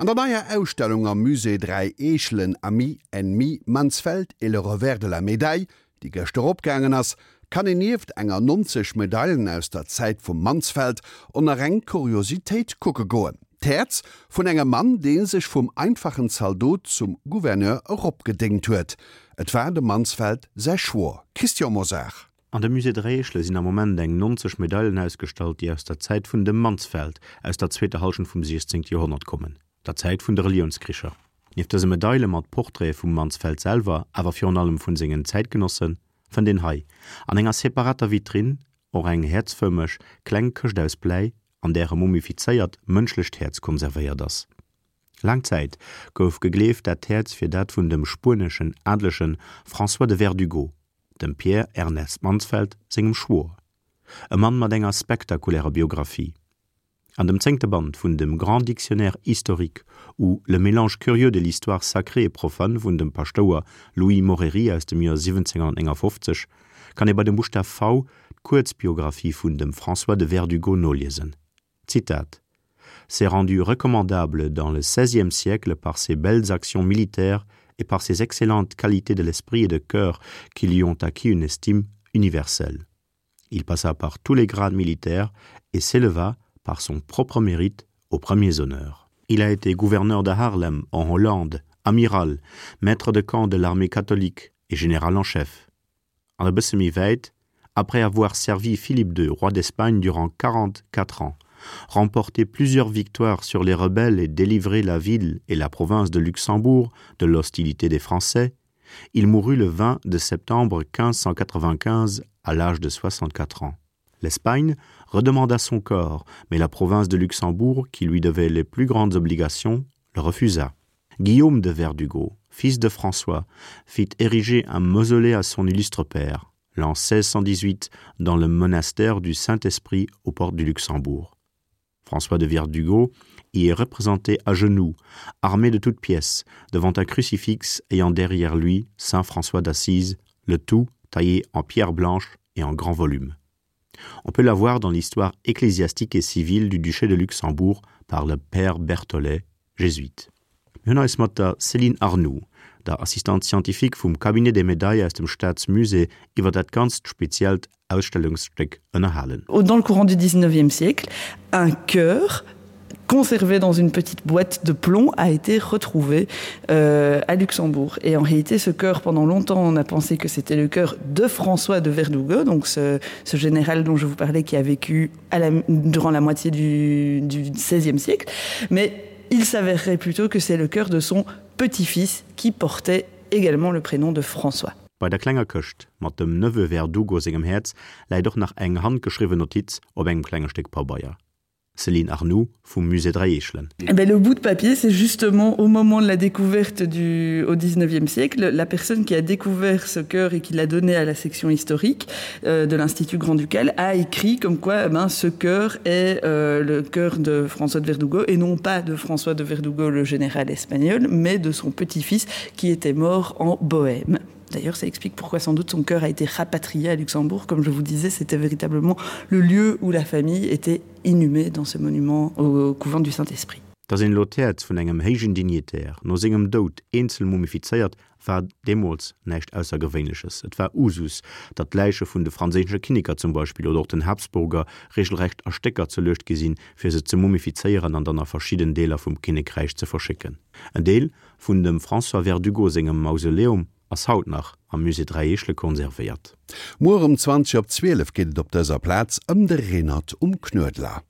An der neier Ausstellung am Musée Dräi Eechelen, Amis, Ennemis, Mansfeld et le revers de la médaille, déi gëschter opgaangen ass, kann een nieft enger 90 Medailen aus der Zäit vum Mansfeld och nach eng Kuriositéit kucke goen, d'Häerz vun engem Mann, dee sech vum einfachen Zaldot zum Gouverneur eropgedéngt huet. Et war dem Mansfeld säi Schwoer Christian Mosar. An dem Musée Dräieschle sinn am Moment eng 90 Medailen ausgestallt, déi aus der Zäit vun dem Mansfeld aus der zweeter Hallschent vum 16. Joerhonnert kommen, der Zäit vun de Reliounskricher. Nieft dëse Medaile mat Portraite vum Mansfeld selwer, awer virun allem vun sengen Zäitgenossen, fënnt een hei, an enger separater Vitrinn, och eng häerzfërmeg kleng Këscht aus Bläi, an där e mumifizéiert mënschlecht Häerz konservéiert ass. Laang Zäit gouf gegleeft, dat Häerz wier dat vun dem spueneschen Adelege François de Verdugo, dem Pierre Ernest Mansfeld sengem Schwoer, e Mann mat enger spektakulärer Biographie. An dem zéngte Band vun dem Grand Dictionnaire historique ou le mélange curieux de l'histoire sacrée et profane vun dem Paschtouer Louis Moreri aus dem Joer 1759 kann ee bei dem Buschtaf V d'Kuerzbiographie vun dem François de Verdugo noliesen. Zitat: S'est rendu recommandable dans le XVIe siècle par ses belles actions militaires et par ses excellentes qualités de l'esprit et de cœur qui lui ont acquis une estime universelle. Il passa par tous les grades militaires et s'éleva par son propre mérite aux premiers honneurs. Il a été gouverneur de Harlem en Hollande, amiral, maître de camp de l'armée catholique et général en chef. An e bësse méi wäit, après avoir servi Philippe II, roi d'Espagne durant 44 ans, remporté plusieurs victoires sur les rebelles et délivré la ville et la province de Luxembourg de l'hostilité des Français, il mourut le 20 de septembre 1595 à l'âge de 64 ans. L'Espagne redemanda son corps, mais la province de Luxembourg, qui lui devait les plus grandes obligations, le refusa. Guillaume de Verdugo, fils de François, fit ériger un mausolée à son illustre père, l'an 1618 dans le monastère du Saint-Esprit aux portes du Luxembourg. François de Verdugo y est représenté à genoux, armé de toutes pièces, devant un crucifix ayant derrière lui saint François d'Assise, le tout taillé en pierre blanche et en grand volume. On peut la voir dans l'histoire ecclésiastique et civile du duché de Luxembourg par le père Berthollet, jésuite. Mir hunn eis mat der Céline Arnoux, der Assistante scientifique vum Cabinet des médailles aus dem Staatsmusée, iwwer dat ganzt speziellt Ausstellungsstéck ënnerhalen. Dans le courant du 19e siècle, un cœur conservé dans une petite boîte de plomb a été retrouvé euh, à Luxembourg. Et en réalité, ce cœur, pendant longtemps, on a pensé que c'était le cœur de François de Verdugo, donc ce, ce général dont je vous parlais qui a vécu à la, durant la moitié du, du 16e siècle. Mais il s'avérerait plutôt que c'est le cœur de son petit-fils qui portait également le prénom de François. Bei der klenger Këscht mat dem Neveu Verdugo sengem Häerz läit och nach eng handgeschriwwen Notiz op engem klenge Stéck Pabeier. Céline Arnoux vum Musée Dräi Eechelen. Eh ben, le bout de papier, c'est justement au moment de la découverte du, au 19e siècle, la personne qui a découvert ce cœur et qui l'a donné à la section historique euh, de l'Institut Grand-Ducal a écrit comme quoi eh ben, ce cœur est euh, le cœur de François de Verdugo et non pas de François de Verdugo, le général espagnol, mais de son petit-fils qui était mort en Bohême. D'ailleurs, ça explique pourquoi sans doute son cœur a été rapatrié à Luxembourg. Comme je vous disais, c'était véritablement le lieu où la famille était inhumée dans ce monument au couvent du Saint-Esprit. Datt een elo d'Häerz vun engem héijen Dignitaire no sengem Doud eenzel mumifizéiert, war deemools näischt Aussergewéinleches. Et war Usus, datt d'Läiche vun de franséische Kinneker zum Beispill oder och den Habsburger regelrecht a Stécker zerluecht gi sinn, fir se ze mumifizéieren an dann a verschidden Deeler vum Kinnekräich ze verschécken. En Deel vun dem François Verdugo sengem Mausoleum ass haut nach am Musée Dräi Eechele konservéiert. Muer um 20 op 12 geet et op dëser Plaz ëm de Renert um Knuedler.